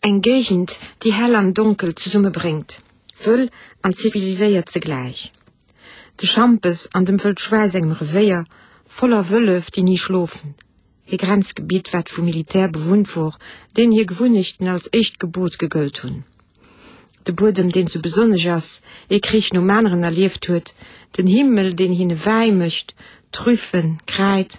Eng Géigend, déi hell an donkel zesummebréngt, wëll an ziviliséiert zegläich. De Schampes an dem Wëld Schwäi sengem Revéier, voller Wëllef, déi ni schlofen. Ee Grenzgebitt, wat vum Militär bewunnt wor, deenen hir Gewunnechten als éischt Gebot gegëllt hunn. De Buedem, deen sou besonnesch ass, ee Krich nom aneren erlieft huet, den Himmel, deen hinne Wäi mécht, Trüffen, Kräid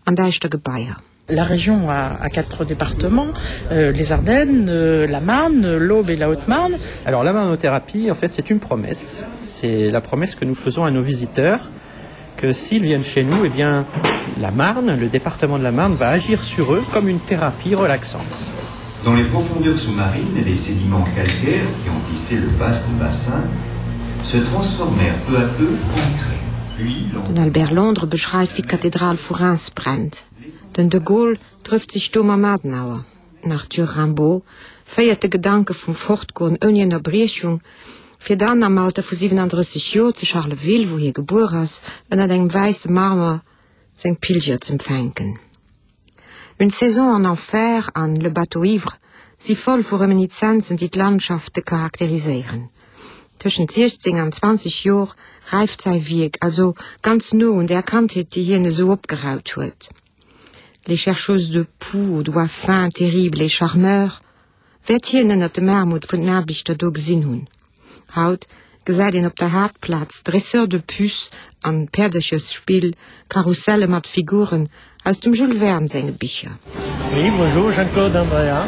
an däischter Gebaier. La région a, a quatre départements, euh, les Ardennes, euh, la Marne, l'Aube et la Haute-Marne. Alors la marnothérapie, en fait, c'est une promesse. C'est la promesse que nous faisons à nos visiteurs que s'ils viennent chez nous, eh bien, la Marne, le département de la Marne va agir sur eux comme une thérapie relaxante. Dans les profondeurs sous-marines, les sédiments calcaires qui emplissaient le vaste bassin se transformèrent peu à peu en craie. Den Albert Londres beschreift, wéi d'Kathedral vu Reims brennt. Den de Gaulle trëfft sech do mam Adenauer. Den Arthur Rimbaud féiert de Gedanke vum Fortgoen ouni Ënnerbriechung, fir dann am Alter vu 37 Joer zu Charleville, wou hie gebuer ass, ënnert engem wäisse Marmer seng Pilger z'empfänken. Une saison en enfer an Le bateau ivre si voll vu Reminizenzen, déi d'Landschafte charakteriséieren. Tëschent 16 an 20 Jor räift säi Wierk, also ganz no un där Kandheet, déi hien esou opgeraut huet. Les chercheuses de poux aux doigts fins, terribles et charmeurs, wäert hien ënnert dem Aarmut vun den Aarbechter do gesinn hunn. Haut gesäit een op der Haaptplaz Dresseurs de puces an Päerderchesspill, Karusselle mat Figuren aus dem Jules Verne senge Bicher. Oui, bonjour, Jean-Claude Andrea.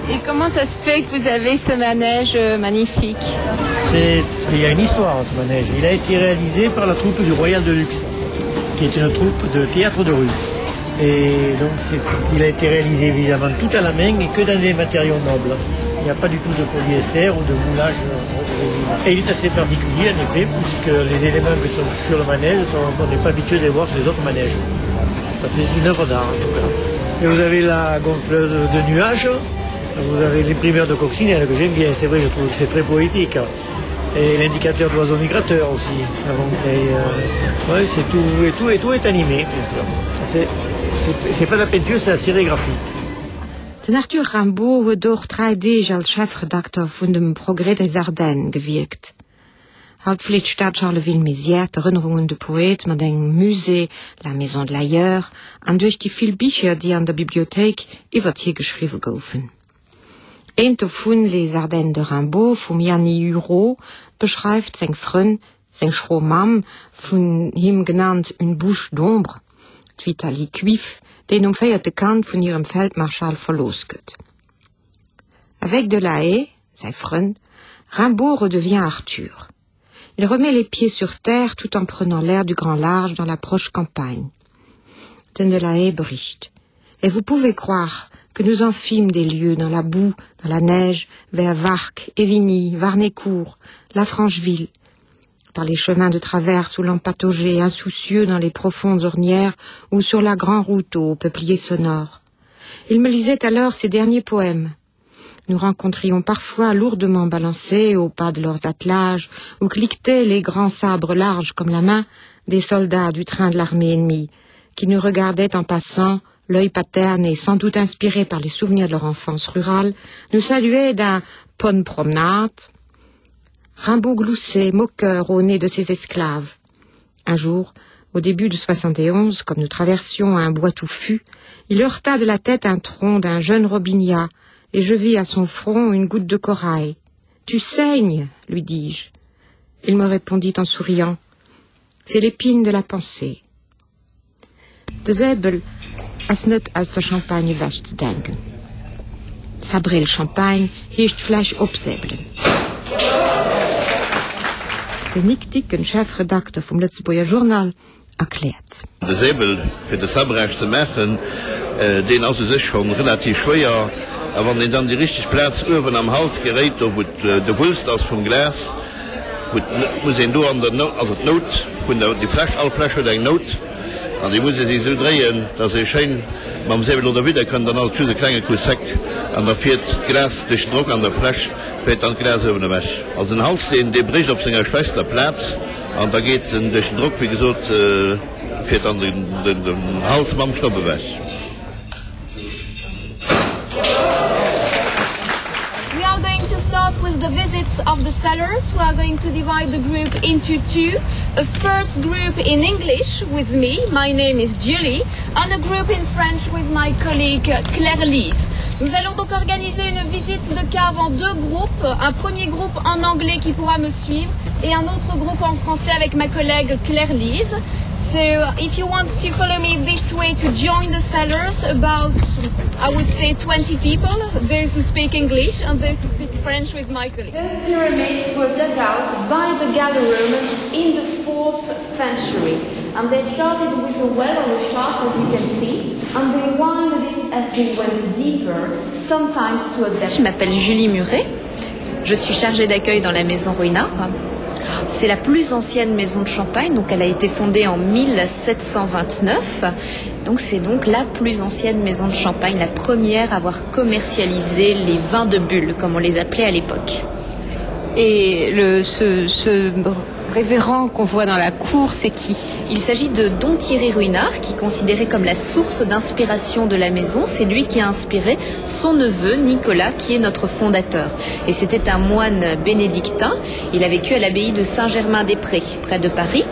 Et comment ça se fait que vous avez ce manège euh, magnifique C'est, il y a une histoire ce manège. Il a été réalisé par la troupe du Royal de Luxe, qui est une troupe de théâtre de rue. Et donc il a été réalisé évidemment tout à la main et que dans des matériaux nobles. Il n'y a pas du tout de polyester ou de moulage de résine. Et il est assez particulier en effet, puisque les éléments qui sont sur le manège, sont, on n'est pas habitué de les voir sur les autres manèges. Ça fait une œuvre d'art en tout cas. Et vous avez la gonfleuse de nuages, vous avez l'imprimeur de coccinelle que j'aime bien, c'est vrai, je trouve que c'est très poétique. Et l'indicateur d'oiseaux migrateurs aussi. C'est euh, ouais, tout et tout et tout est animé, bien sûr. C'est pas la peinture, c'est la sérigraphie. Den Arthur Rimbaud huet och 3 Deeg als Chefredakter vun dem Progrès des Ardennes gewierkt. Haut fleet d'Stad Charleville-Mézières d'Erënnerung un de Poet mat engem Musée, la Maison de l'ailleurs, an duerch déi vill Bicher, déi an der Bibliothéik iwwert hie geschriwwe goufen. Eent dovun, Les Ardennes de Rimbaud vum Yanny Hurault, beschreift seng Frënn, seng schro Mamm, vun him genannt une bouche d'ombre, d'Vitalie Cuif, déi nom véierte Kand vun hirem Feldmarschall verlooss gëtt. Avec Delahaye, säi Frënn, Rimbaud redevient Arthur. Il remet les pieds sur terre tout en prenant l'air du grand large dans la proche campagne. Den Delahaye bericht. Et vous pouvez croire que nous en fîmes des lieux dans la boue, dans la neige, vers Varques, Évigny, Warnécourt, la Francheville, par les chemins de traverse où l'on pataugeait insoucieux dans les profondes ornières ou sur la grande route aux peupliers sonores. Il me lisait alors ses derniers poèmes. Nous rencontrions parfois lourdement balancés au pas de leurs attelages, où cliquetaient les grands sabres larges comme la main des soldats du train de l'armée ennemie, qui nous regardaient en passant, l'œil paterne et sans doute inspiré par les souvenirs de leur enfance rurale, nous saluaient d'un « promenade ». Rimbaud gloussait, moqueur au nez de ses esclaves. Un jour, au début de 71, comme nous traversions un bois touffu, il heurta de la tête un tronc d'un jeune robinia, et je vis à son front une goutte de corail. Tu saignes, lui dis-je. Il me répondit en souriant. C'est l'épine de la pensée. De Säbel ass net aus der Champagne ewech ze denken. Sabrer le champagne heescht d'Fläsch opsäbelen. Den Nic Dicken, Chefredakter vum Lëtzebuerger Journal, erkläert. De Säbel fir de Sabrage ze maachen, deen ass u sech schonn relativ schwéier, a wann een dann déi richteg Plaz uewen am Hals geréit, do wou de Wulst ass vum Glas, wou muss een do an der Nout, also d'Nout vun der, déi Fläsch, all Fläsch huet eng Nout, an déi muss ee sech esou dréien, dass ee schéin mam Säbel do derwidder kënnt, dann ass et just e klenge Coup sec an da fiert d'Glas duerch den Drock an der Fläsch fiert dann d'Glas uewen ewech. Also den Hals, deen, dee brécht op senger schwächster Plaz an da geet en duerch den Drock, wéi gesot, fiert dann den Hals mam Schnopp ewech. the visits of the cellars. We are going to divide the group into two. A first group in English with me, my name is Julie, and a group in French with my colleague Claire Lise. Nous allons donc organiser une visite de cave en deux groupes, un premier groupe en anglais qui pourra me suivre et un autre groupe en français avec ma collègue Claire Lise. So if you want to follow me this way to join the cellars about I would say 20 people, those who speak English and those who speak French with my colleague. Those pyramids were dug out by the Gallo-Romans in the 4th century and they started with a well or a shark as you can see and they winded it as they went deeper sometimes to a depth. Je m'appelle Julie Muret. Je suis chargée d'accueil dans la maison Ruinard. C'est la plus ancienne maison de Champagne, donc elle a été fondée en 1729. Donc c'est donc la plus ancienne maison de Champagne, la première à avoir commercialisé les vins de bulles, comme on les appelait à l'époque. Et le, ce, ce révérend qu'on voit dans la cour, c'est qui Il s'agit de Don Thierry Ruinard, qui est considéré comme la source d'inspiration de la maison. C'est lui qui a inspiré son neveu Nicolas, qui est notre fondateur. Et c'était un moine bénédictin. Il a vécu à l'abbaye de Saint-Germain-des-Prés, près de Paris.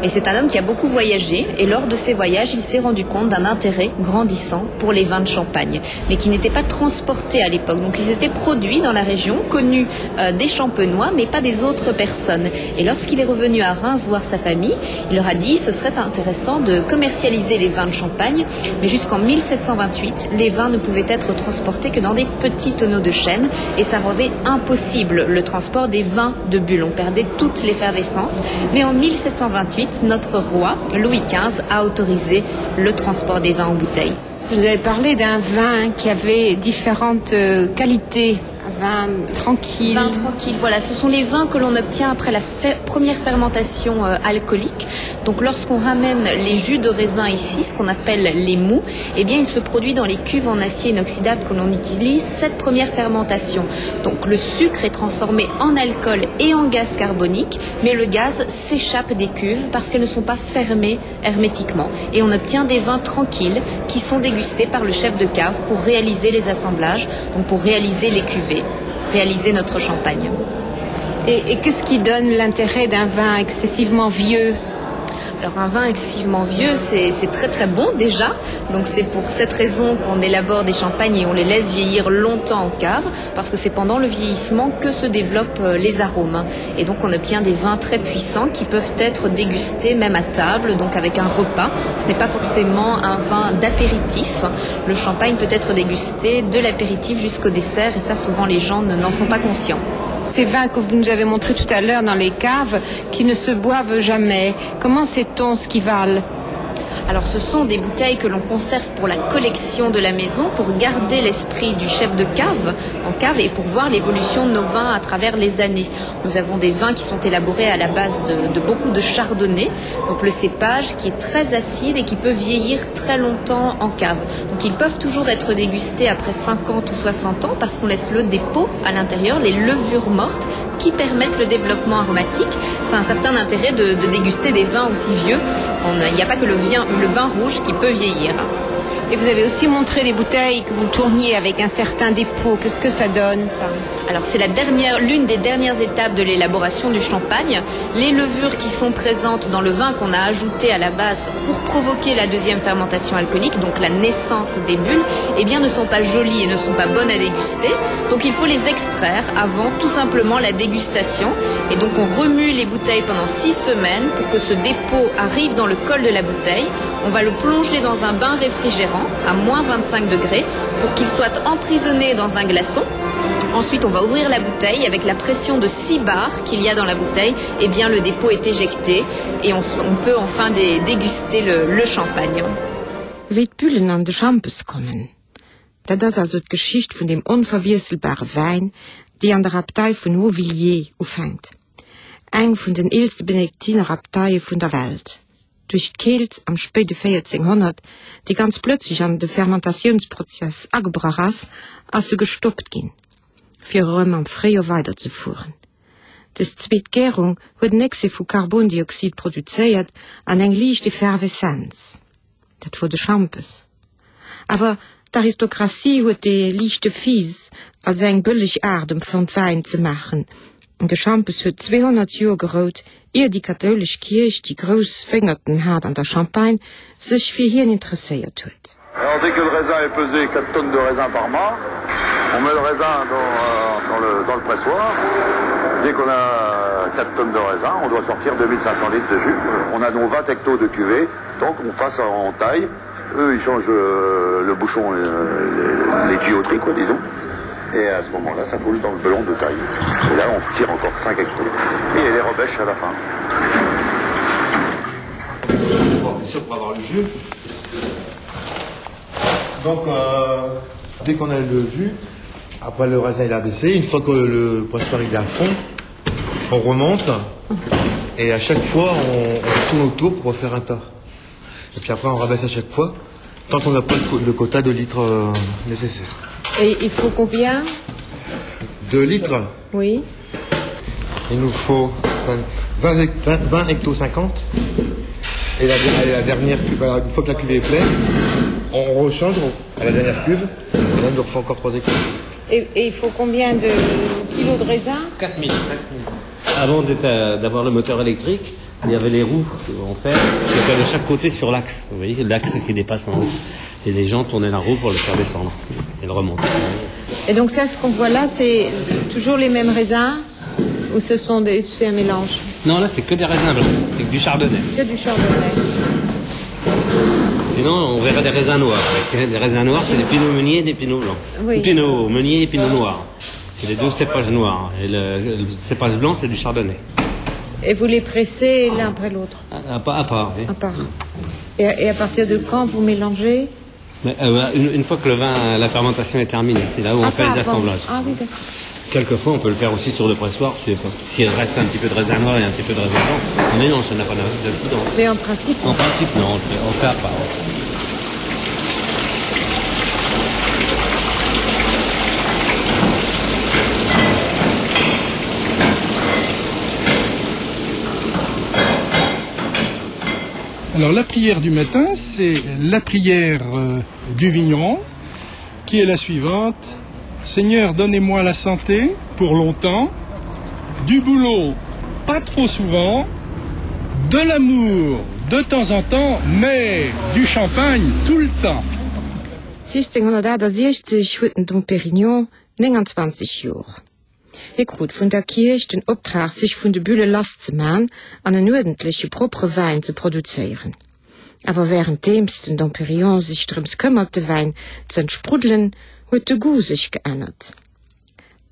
Et c'est un homme qui a beaucoup voyagé. Et lors de ses voyages, il s'est rendu compte d'un intérêt grandissant pour les vins de Champagne, mais qui n'étaient pas transportés à l'époque. Donc ils étaient produits dans la région, connus euh, des champenois, mais pas des autres personnes. Et lorsqu'il est revenu à Reims voir sa famille, il leur a dit ce serait intéressant de commercialiser les vins de Champagne, mais jusqu'en 1728, les vins ne pouvaient être transportés que dans des petits tonneaux de chêne et ça rendait impossible le transport des vins de bulles. On perdait toute l'effervescence. Mais en 1728, notre roi, Louis XV, a autorisé le transport des vins en bouteille. Vous avez parlé d'un vin qui avait différentes euh, qualités vin tranquille. Vin tranquille, voilà, ce sont les vins que l'on obtient après la fe première fermentation euh, alcoolique. Donc lorsqu'on ramène les jus de raisin ici, ce qu'on appelle les mous, eh bien il se produit dans les cuves en acier inoxydable que l'on utilise cette première fermentation. Donc le sucre est transformé en alcool et en gaz carbonique, mais le gaz s'échappe des cuves parce qu'elles ne sont pas fermées hermétiquement et on obtient des vins tranquilles qui sont dégustés par le chef de cave pour réaliser les assemblages, donc pour réaliser les cuvées, réaliser notre champagne. Et, et qu'est-ce qui donne l'intérêt d'un vin excessivement vieux? Alors un vin excessivement vieux, c'est très très bon déjà. Donc c'est pour cette raison qu'on élabore des champagnes et on les laisse vieillir longtemps en cave, parce que c'est pendant le vieillissement que se développent euh, les arômes. Et donc on obtient des vins très puissants qui peuvent être dégustés même à table, donc avec un repas. Ce n'est pas forcément un vin d'apéritif. Le champagne peut être dégusté de l'apéritif jusqu'au dessert et ça souvent les gens n'en sont pas conscients. Ces vins que vous nous avez montré tout à l'heure dans les caves qui ne se boivent jamais, comment sait-on ce qu'ils valent? Alors ce sont des bouteilles que l'on conserve pour la collection de la maison, pour garder l'esprit du chef de cave en cave et pour voir l'évolution de nos vins à travers les années. Nous avons des vins qui sont élaborés à la base de, de beaucoup de chardonnay, donc le cépage qui est très acide et qui peut vieillir très longtemps en cave. Donc ils peuvent toujours être dégustés après 50 ou 60 ans parce qu'on laisse le dépôt à l'intérieur, les levures mortes qui permettent le développement aromatique. C'est un certain intérêt de, de déguster des vins aussi vieux. Il n'y a pas que le, vin, le vin rouge qui peut vieillir. Et vous avez aussi montré des bouteilles que vous tourniez avec un certain dépôt. Qu'est-ce que ça donne ça Alors c'est la dernière l'une des dernières étapes de l'élaboration du champagne. Les levures qui sont présentes dans le vin qu'on a ajouté à la base pour provoquer la deuxième fermentation alcoolique, donc la naissance des bulles, eh bien ne sont pas jolies et ne sont pas bonnes à déguster. Donc il faut les extraire avant tout simplement la dégustation. Et donc on remue les bouteilles pendant six semaines pour que ce dépôt arrive dans le col de la bouteille. On va le plonger dans un bain réfrigérant à moins 25 degrés pour qu'il soit emprisonné dans un glaçon. Ensuite, on va ouvrir la bouteille avec la pression de 6 bars qu'il y a dans la bouteille, et eh bien le dépôt est éjecté et on, on peut enfin dé, déguster le, le champagne. Wéi d'Bullen an de Schampes kommen, dat ass also d'Geschicht vun deem onverwiesselbare Wäin, déi an der Abtei vun Hautvillers ufänkt, eng vun den eelste Benediktinerabteie vun der Welt. Duerch d'Keelt am spéide 1400, déi ganz plötzlech an de Fermentatiounsprozess agebrach ass, ass se gestoppt ginn, fir erëm am Fréijoer weiderzefueren. Dës zweet Gärung huet en Excès vu Karbondioxid produzéiert an eng liicht Efferveszenz. Dat wor de Schampes. Awer. D'Aristokratie huet dee liichte Fizz als eng bëlleg Aart empfonnt Wäin ze maachen. De Schampes huet 200 Joer gerout, ier déi kathoulesch Kierch, déi grouss Wéngerten hat an der Champagne, sech fir hien interesséiert huet. Alors dès que le raisin est pesé, 4 tonnes de raisin par mât, on met le raisin dans, euh, dans, le, dans le pressoir. Dès qu'on a 4 tonnes de raisin, on doit sortir 2500 litres de jus. On a nos 20 hectos de cuvée, donc on passe en taille. Eux, ils changent euh, le bouchon, euh, les, les tuyauteries, quoi, disons. Et à ce moment-là, ça coule dans le belon de taille. Et là, on tire encore 5 hectos. Et les rebêche à la fin. Bon, bien sûr, pour avoir le jus. Donc, euh, dès qu'on a le jus, après le raisin il a baissé, une fois que le pressoir il est à fond, on remonte et à chaque fois on, on tourne autour pour refaire un tas. Et puis après on rabaisse à chaque fois tant qu'on n'a pas le, le quota de litres euh, nécessaire. Et il faut combien De litres Oui. Il nous faut 20, 20, 20 hecto 50 et la, la dernière cube, une fois que la cuvée est pleine, on rechange à la dernière cuve et là on nous refait encore 3 hectos. Et, et il faut combien de kilos de raisin 4000. Avant d'avoir le moteur électrique, il y avait les roues en fer qui étaient de chaque côté sur l'axe. Vous voyez l'axe qui dépasse en haut. Et les gens tournaient la roue pour le faire descendre et le remonter. Et donc ça, ce qu'on voit là, c'est toujours les mêmes raisins ou ce sont des c'est un mélange Non, là c'est que des raisins blancs, c'est que du chardonnay. Que du chardonnay. Sinon, on verrait des raisins noirs. Des raisins noirs, c'est des pinots meuniers et des pinots blancs. Oui. Pinot meunier et pinot noir. C'est les deux cépages noirs. Et le, le cépage blanc, c'est du chardonnay. Et vous les pressez l'un après l'autre à, à, à part. Oui. À part. Et, et à partir de quand vous mélangez Mais, euh, une, une fois que le vin, la fermentation est terminée, c'est là où ah, on fait les assemblages. Ah, oui, d'accord. Quelquefois, on peut le faire aussi sur le pressoir, s'il reste un petit peu de raisin noir et un petit peu de raisin blanc. Mais non, ça n'a pas d'incidence. Mais en principe En principe, non, on le fait, on le fait à part. Ouais. Alors la prière du matin, c'est la prière euh, du vigneron, qui est la suivante. Seigneur, donnez-moi la santé pour longtemps, du boulot pas trop souvent, de l'amour de temps en temps, mais du champagne tout le temps. 1668 huet den Dom Pérignon 29 Jor. Hie krut vun der Kierch den Optrag sech vun de Bülle lass ze man an en uerdentleche propre Wäin ze produzéieren. Awer wärenddeems den Dom Pérignon sech drëms këmmert de Wäin z'entspruddelen, huet de Goût sech geännert.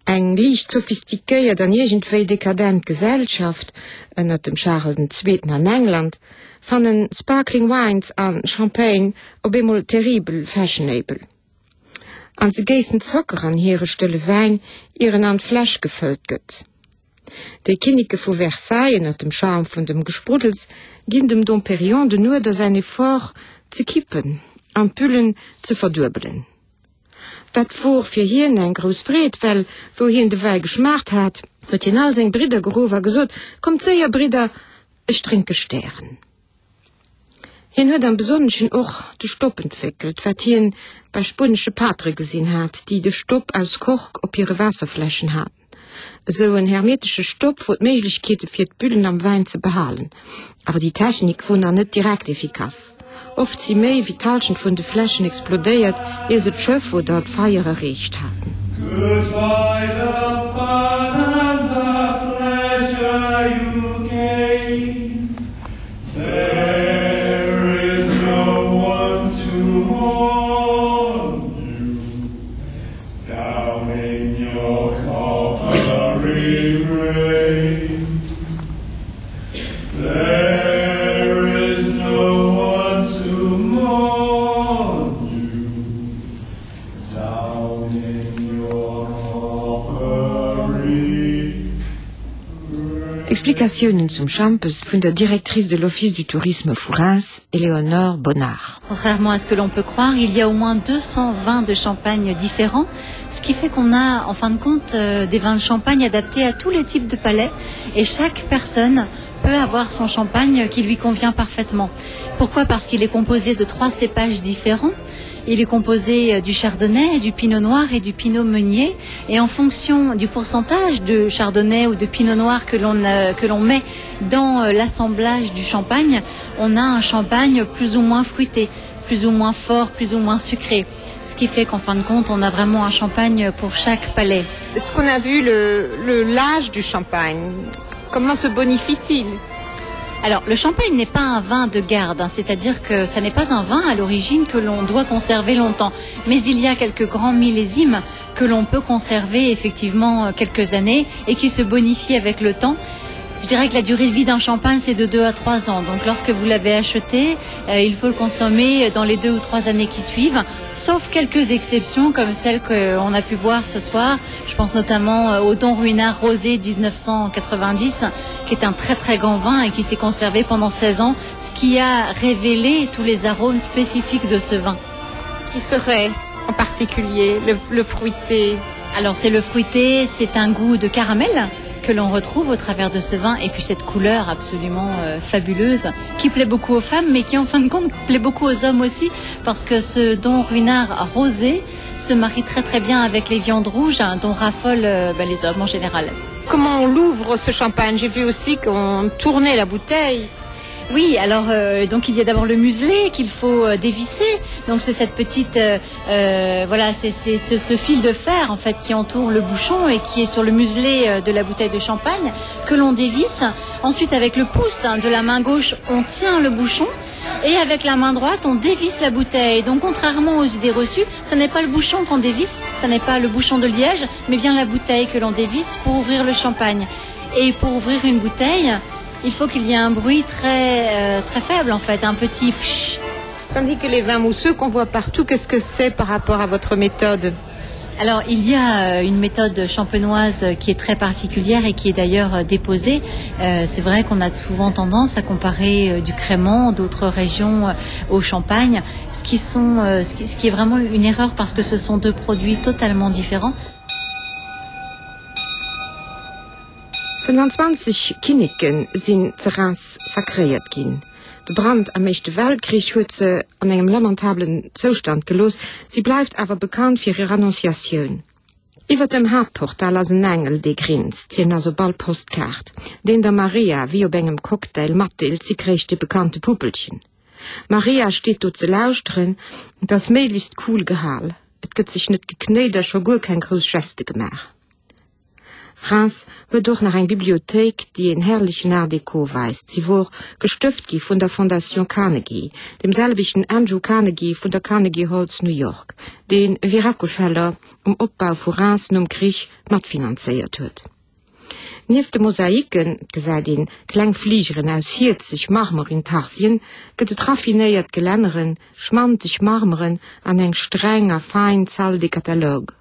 Eng liicht sophistiquéiert an iergendwéi dekadent Gesellschaft ënnert dem Charles den Zweeten an England fannen Sparkling Wines a Champagne op eemol terribel fashionable. An se géissen Zocker an hire stëlle Wäin, ier en an d'Fläsch gefëllt gëtt. Déi Kinneke vu Versailles ënnert dem Charme vun dem Gespruddels ginn dem Dom Pérignon den Uerder säin Effort ze kippen an d'Büllen ze verduebelen. Dat wor fir hien eng grouss Freed, well wou hien de Wäi geschmaacht hat, huet hien all seng Bridder geruff a gesot, Kommt séier, Bridder, ech drénke Stären. Hien huet am Besonneschen och de Stopp entwéckelt, wat hien bei spuenesche Patere gesinn hat, déi de Stopp aus Kork op hire Waasserfläschen haten. Esou en hermetesche Stopp wor d'Méiglechkeete fir d'Büllen am Wäin ze behalen. Awer déi Technik wor nach net direkt efficace. Oft si méi wéi d'Halschent vun de Fläschen explodéiert, ier se d'Schëff oder d'Feier erreecht haten. Goodbye the fun and the pleasure you gave There is no one to mourn you Down in your coppery grave There is no one to mourn you Down in your coppery Explikatiounen zum Schampes vun der Directrice de l'Office du Tourisme vu Reims, Éléonore Bonnard. Contrairement à ce que l'on peut croire, il y a au moins 220 de champagne différents, ce qui fait qu'on a en fin de compte euh, des vins de champagne adaptés à tous les types de palais et chaque personne peut avoir son champagne qui lui convient parfaitement. Pourquoi Parce qu'il est composé de trois cépages différents. Il est composé euh, du chardonnay, du pinot noir et du pinot meunier. Et en fonction du pourcentage de chardonnay ou de pinot noir que l'on euh, que l'on met dans euh, l'assemblage du champagne, on a un champagne plus ou moins fruité, plus ou moins fort, plus ou moins sucré. Ce qui fait qu'en fin de compte, on a vraiment un champagne pour chaque palais. Ce qu'on a vu le, le l'âge du champagne, comment se bonifie-t-il? Alors le champagne n'est pas un vin de garde, c'est-à-dire que ça n'est pas un vin à l'origine que l'on doit conserver longtemps. Mais il y a quelques grands millésimes que l'on peut conserver effectivement euh, quelques années et qui se bonifient avec le temps. Je dirais que la durée de vie d'un champagne c'est de 2 à 3 ans. Donc lorsque vous l'avez acheté, euh, il faut le consommer dans les deux ou trois années qui suivent, sauf quelques exceptions comme celles qu'on a pu boire ce soir. Je pense notamment euh, au Don Ruinard Rosé 1990 qui est un très très grand vin et qui s'est conservé pendant 16 ans, ce qui a révélé tous les arômes spécifiques de ce vin. Qui serait en particulier le, le fruité Alors c'est le fruité, c'est un goût de caramel que l'on retrouve au travers de ce vin et puis cette couleur absolument euh, fabuleuse qui plaît beaucoup aux femmes mais qui en fin de compte plaît beaucoup aux hommes aussi parce que ce don ruinard rosé se marie très très bien avec les viandes rouges hein, dont raffolent euh, ben, les hommes en général. Comment on l'ouvre ce champagne J'ai vu aussi qu'on tournait la bouteille. Oui, alors euh, donc il y a d'abord le muselet qu'il faut euh, dévisser. Donc c'est cette petite euh, euh, voilà, c'est ce, ce fil de fer en fait qui entoure le bouchon et qui est sur le muselet euh, de la bouteille de champagne que l'on dévisse. Ensuite avec le pouce hein, de la main gauche, on tient le bouchon et avec la main droite, on dévisse la bouteille. Donc contrairement aux idées reçues, ce n'est pas le bouchon qu'on dévisse, ce n'est pas le bouchon de liège, mais bien la bouteille que l'on dévisse pour ouvrir le champagne. Et pour ouvrir une bouteille, il faut qu'il y ait un bruit très, euh, très faible en fait, un petit pchit. Tandis que les vins mousseux qu'on voit partout, qu'est-ce que c'est par rapport à votre méthode? Alors il y a euh, une méthode champenoise qui est très particulière et qui est d'ailleurs euh, déposée. Euh, C'est vrai qu'on a souvent tendance à comparer euh, du crément d'autres régions au champagne, ce qui, sont, ce qui, ce qui est vraiment une erreur parce que ce sont deux produits totalement différents. 25 Kinneke sinn ze Reims sacréiert ginn. De Brand am Éischte Weltkrich huet se an engem lamentablen Zoustand gelooss, si bleift awer bekannt fir hir Annonciatioun. Iwwer dem Haaptportal ass en Engel, dee grinst, hien ass op all Postkaart, deen der Maria wéi op engem Cocktail matdeelt, si kréich de bekannte Puppelchen. D'Maria steet do ze lauschteren, et ass méiglechst cool gehal, et gëtt sech net geknéit a scho guer keng grouss Geste gemaach. Reims huet och nach eng Bibliothéik, déi een herrlechen Art Déco weist. Si wor gestëft gi vun der Fondation Carnegie, dem selwechten Andrew Carnegie vun der Carnegie Hall zu New York, dee wéi Rockefeller um Opbau vu Reims nom Krich matfinanzéiert huet. Nieft de Mosaiken, et gesäit een kleng Fligeren aus hierzeg Marmor-Intarsien, gëtt et raffinéiert Gelänneren, schmanteg Marmeren an eng streng a fein Salle des catalogues.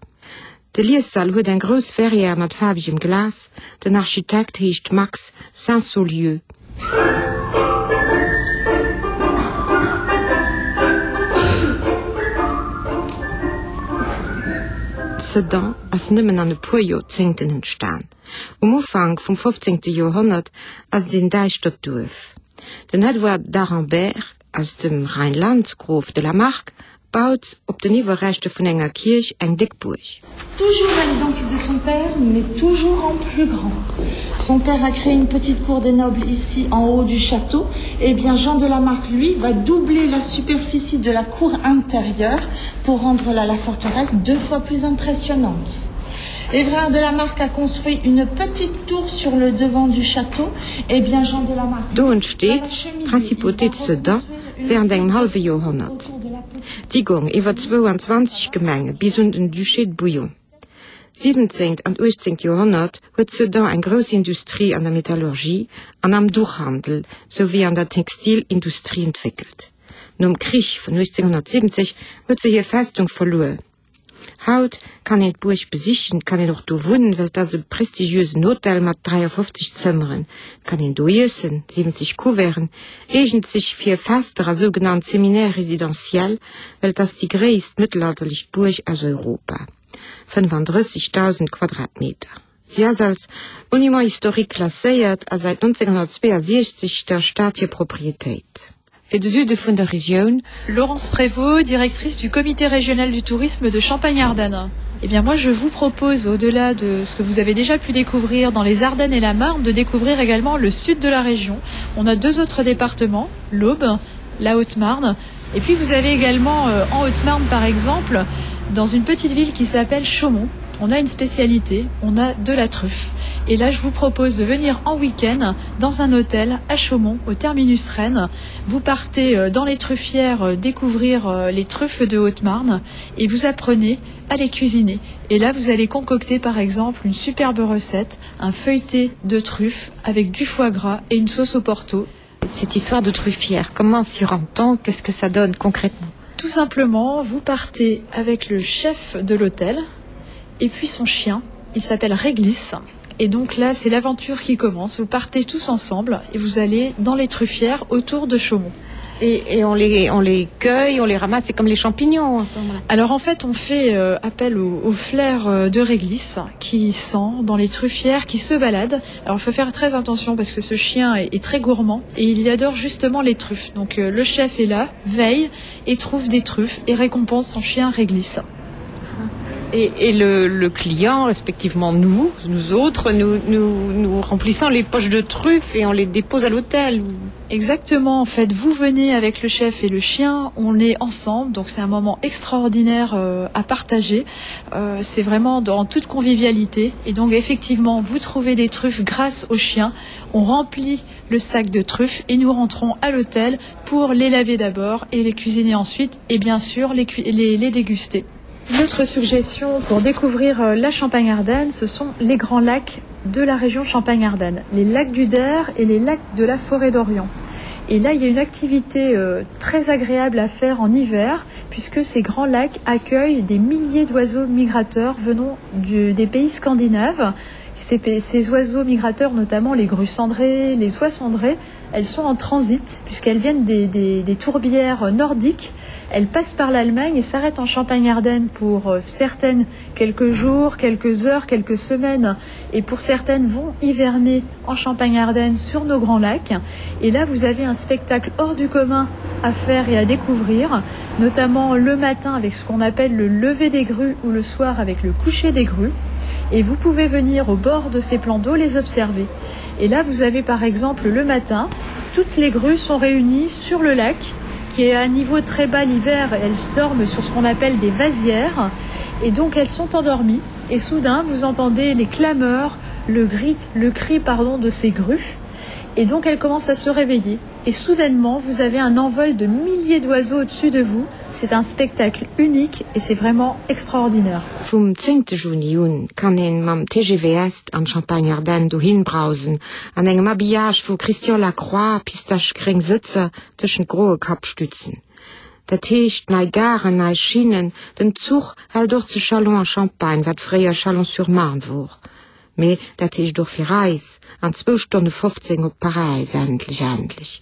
De Liessall huet eng grouss Verrière mat faarwegem Glas. Den Architekt heescht Max Sainsaulieu. Sedan ass nëmmen an e puer Joerzéngten entstan. Um Ufank vum 15. Joerhonnert ass et een däischtert Duerf. Den Edouard d'Aremberg aus dem Rheinland, Grof de la Marck, baut op den Iwwerreschter vun enger Kierch eng déck Buerg. Toujours à l'identique de son père, mais toujours en plus grand. Son père a créé une petite cour des nobles ici en haut du château. Et eh bien Jean de Lamarck lui va doubler la superficie de la cour intérieure pour rendre la, la forteresse deux fois plus impressionnante. Évrard de Lamarck a construit une petite tour sur le devant du château et eh bien Jean de Lamarck Do entsteet d'Principauté de Sedan während engem hallwe Joerhonnert. Déi gong iwwer 22 Gemenge bis un den Duché de Bouillon. Siwwenzéngt an uechtzéngt Joerhonnert huet Sedan eng grouss Industrie an der Metallurgie an am Duchhandel souwéi an der Textilindustrie entwéckelt. Nom Krich vun 1870 huet se hir Festung verluer. Haut kann een d'Buerg besichen, et kann een och do wunnen, well et ass e prestigiösen Hotel mat 53 Zëmmeren. Et kann een do iessen, 70 Couverten, eegent sech fir Fester a sougenannt Séminaires résidentiels, well et ass déi gréisst mëttelalterlech Buerg aus Europa, 35.000 Quadratmeter. Si ass als Monument historique klasséiert a säit 1962 der Stad hir Proprietéit. Fir de Süde vun der Regioun. Laurence Prévost, directrice du comité régional du tourisme de Champagne-Ardenne. Eh bien moi je vous propose au-delà de ce que vous avez déjà pu découvrir dans les Ardennes et la Marne de découvrir également le sud de la région. On a deux autres départements, l'Aube, la Haute-Marne et puis vous avez également euh, en Haute-Marne par exemple dans une petite ville qui s'appelle Chaumont on a une spécialité, on a de la truffe. Et là je vous propose de venir en week-end dans un hôtel à Chaumont au terminus Rennes. Vous partez euh, dans les truffières euh, découvrir euh, les truffes de Haute-Marne et vous apprenez à les cuisiner. Et là vous allez concocter par exemple une superbe recette, un feuilleté de truffes avec du foie gras et une sauce au porto. Cette histoire de truffière, comment s'y rend-on Qu'est-ce que ça donne concrètement Tout simplement, vous partez avec le chef de l'hôtel et puis son chien. Il s'appelle Réglisse. Et donc là, c'est l'aventure qui commence. Vous partez tous ensemble et vous allez dans les truffières autour de Chaumont. Et, et on, les, on les cueille, on les ramasse, c'est comme les champignons. Alors en fait, on fait euh, appel au, au flair euh, de réglisse qui sent dans les truffières, qui se balade. Alors il faut faire très attention parce que ce chien est, est très gourmand et il adore justement les truffes. Donc euh, le chef est là, veille et trouve des truffes et récompense son chien réglisse. Et, et le, le client, respectivement nous, nous autres, nous, nous, nous remplissons les poches de truffes et on les dépose à l'hôtel. Exactement, en fait, vous venez avec le chef et le chien, on est ensemble, donc c'est un moment extraordinaire euh, à partager. Euh, c'est vraiment dans toute convivialité. Et donc effectivement, vous trouvez des truffes grâce au chien. On remplit le sac de truffes et nous rentrons à l'hôtel pour les laver d'abord et les cuisiner ensuite et bien sûr les, les, les déguster. Notre suggestion pour découvrir euh, la Champagne-Ardenne, ce sont les grands lacs de la région Champagne-Ardenne, les lacs du Der et les lacs de la forêt d'Orient. Et là, il y a une activité euh, très agréable à faire en hiver, puisque ces grands lacs accueillent des milliers d'oiseaux migrateurs venant du, des pays scandinaves. Ces, ces oiseaux migrateurs, notamment les grues cendrées, les oies cendrées, elles sont en transit puisqu'elles viennent des, des, des tourbières nordiques. Elles passent par l'Allemagne et s'arrêtent en Champagne-Ardenne pour euh, certaines quelques jours, quelques heures, quelques semaines et pour certaines vont hiverner en Champagne-Ardenne sur nos grands lacs. Et là, vous avez un spectacle hors du commun à faire et à découvrir, notamment le matin avec ce qu'on appelle le lever des grues ou le soir avec le coucher des grues. Et vous pouvez venir au bord de ces plans d'eau les observer. Et là, vous avez par exemple le matin, toutes les grues sont réunies sur le lac qui est à un niveau très bas l'hiver, elles dorment sur ce qu'on appelle des vasières et donc elles sont endormies et soudain vous entendez les clameurs, le gris, le cri pardon de ces grues et donc elles commencent à se réveiller et soudainement vous avez un envol de milliers d'oiseaux au-dessus de vous. C'est un spectacle unique et c'est vraiment extraordinaire. Vum zéngte Juni un kann een mam TGV Est an d'Champagne-Ardenne dohin brausen, an engem Habillage vu Christian Lacroix, pistachegréng Sëtzer tëschent groe Kappstützen. Dat heescht, nei Garen, nei Schinnen, den Zuch hält och zu Châlons-en-Champagne, wat fréier Châlons-sur-Marne wor. Mee dat heescht och fir eis, an zwou Stonne 15 op Paräis, endlech, endlech.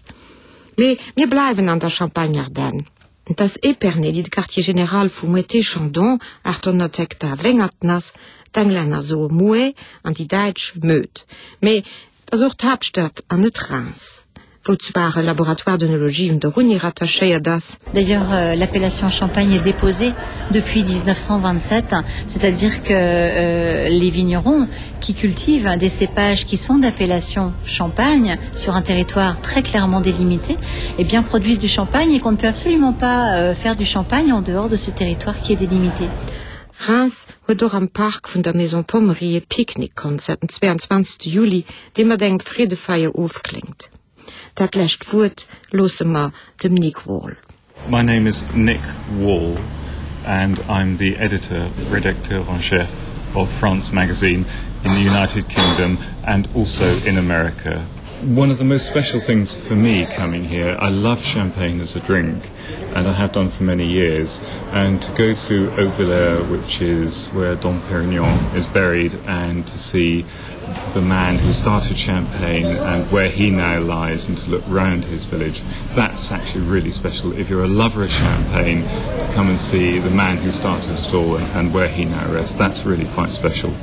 Mee mir bleiwen an der Champagne-Ardenne. Et ass Épernay, déi de Quartier général vu Moët-Chandon, 800 Hektar Wéngerten, ass. D'Englänner soe Moët an déi Däitsch Möd. Mee et ass och d'Haaptstad an net Reims, wou zwar e Laboratoire d'œnologie un der Uni rattachéiert ass. D'ailleurs, euh, l'appellation Champagne est déposée depuis 1927, c'est-à-dire que euh, les vignerons qui cultivent des cépages qui sont d'appellation Champagne sur un territoire très clairement délimité, eh bien produisent du champagne et qu'on ne peut absolument pas euh, faire du champagne en dehors de ce territoire qui est délimité. Reims huet och am Park vun der Maison Pommery e Picknick-Concert den 22 Juli, dee mat engem Freedefeier ofkléngt. Dat lescht Wuert loosse mer dem Nick Wall. My name is Nick Wall and I'm the editor, rédacteur en chef of France Magazine in the United Kingdom and also in America. One of the most special things for me coming here, I love champagne as a drink and I have done for many years and to go to Auverlaire, which is where Dom Perignon is buried and to see the man who started champagne and where he now lies and to look round his village that's actually really special if you're a lover of champagne to come and see the man who started it all and, and where he now rests that's really quite special.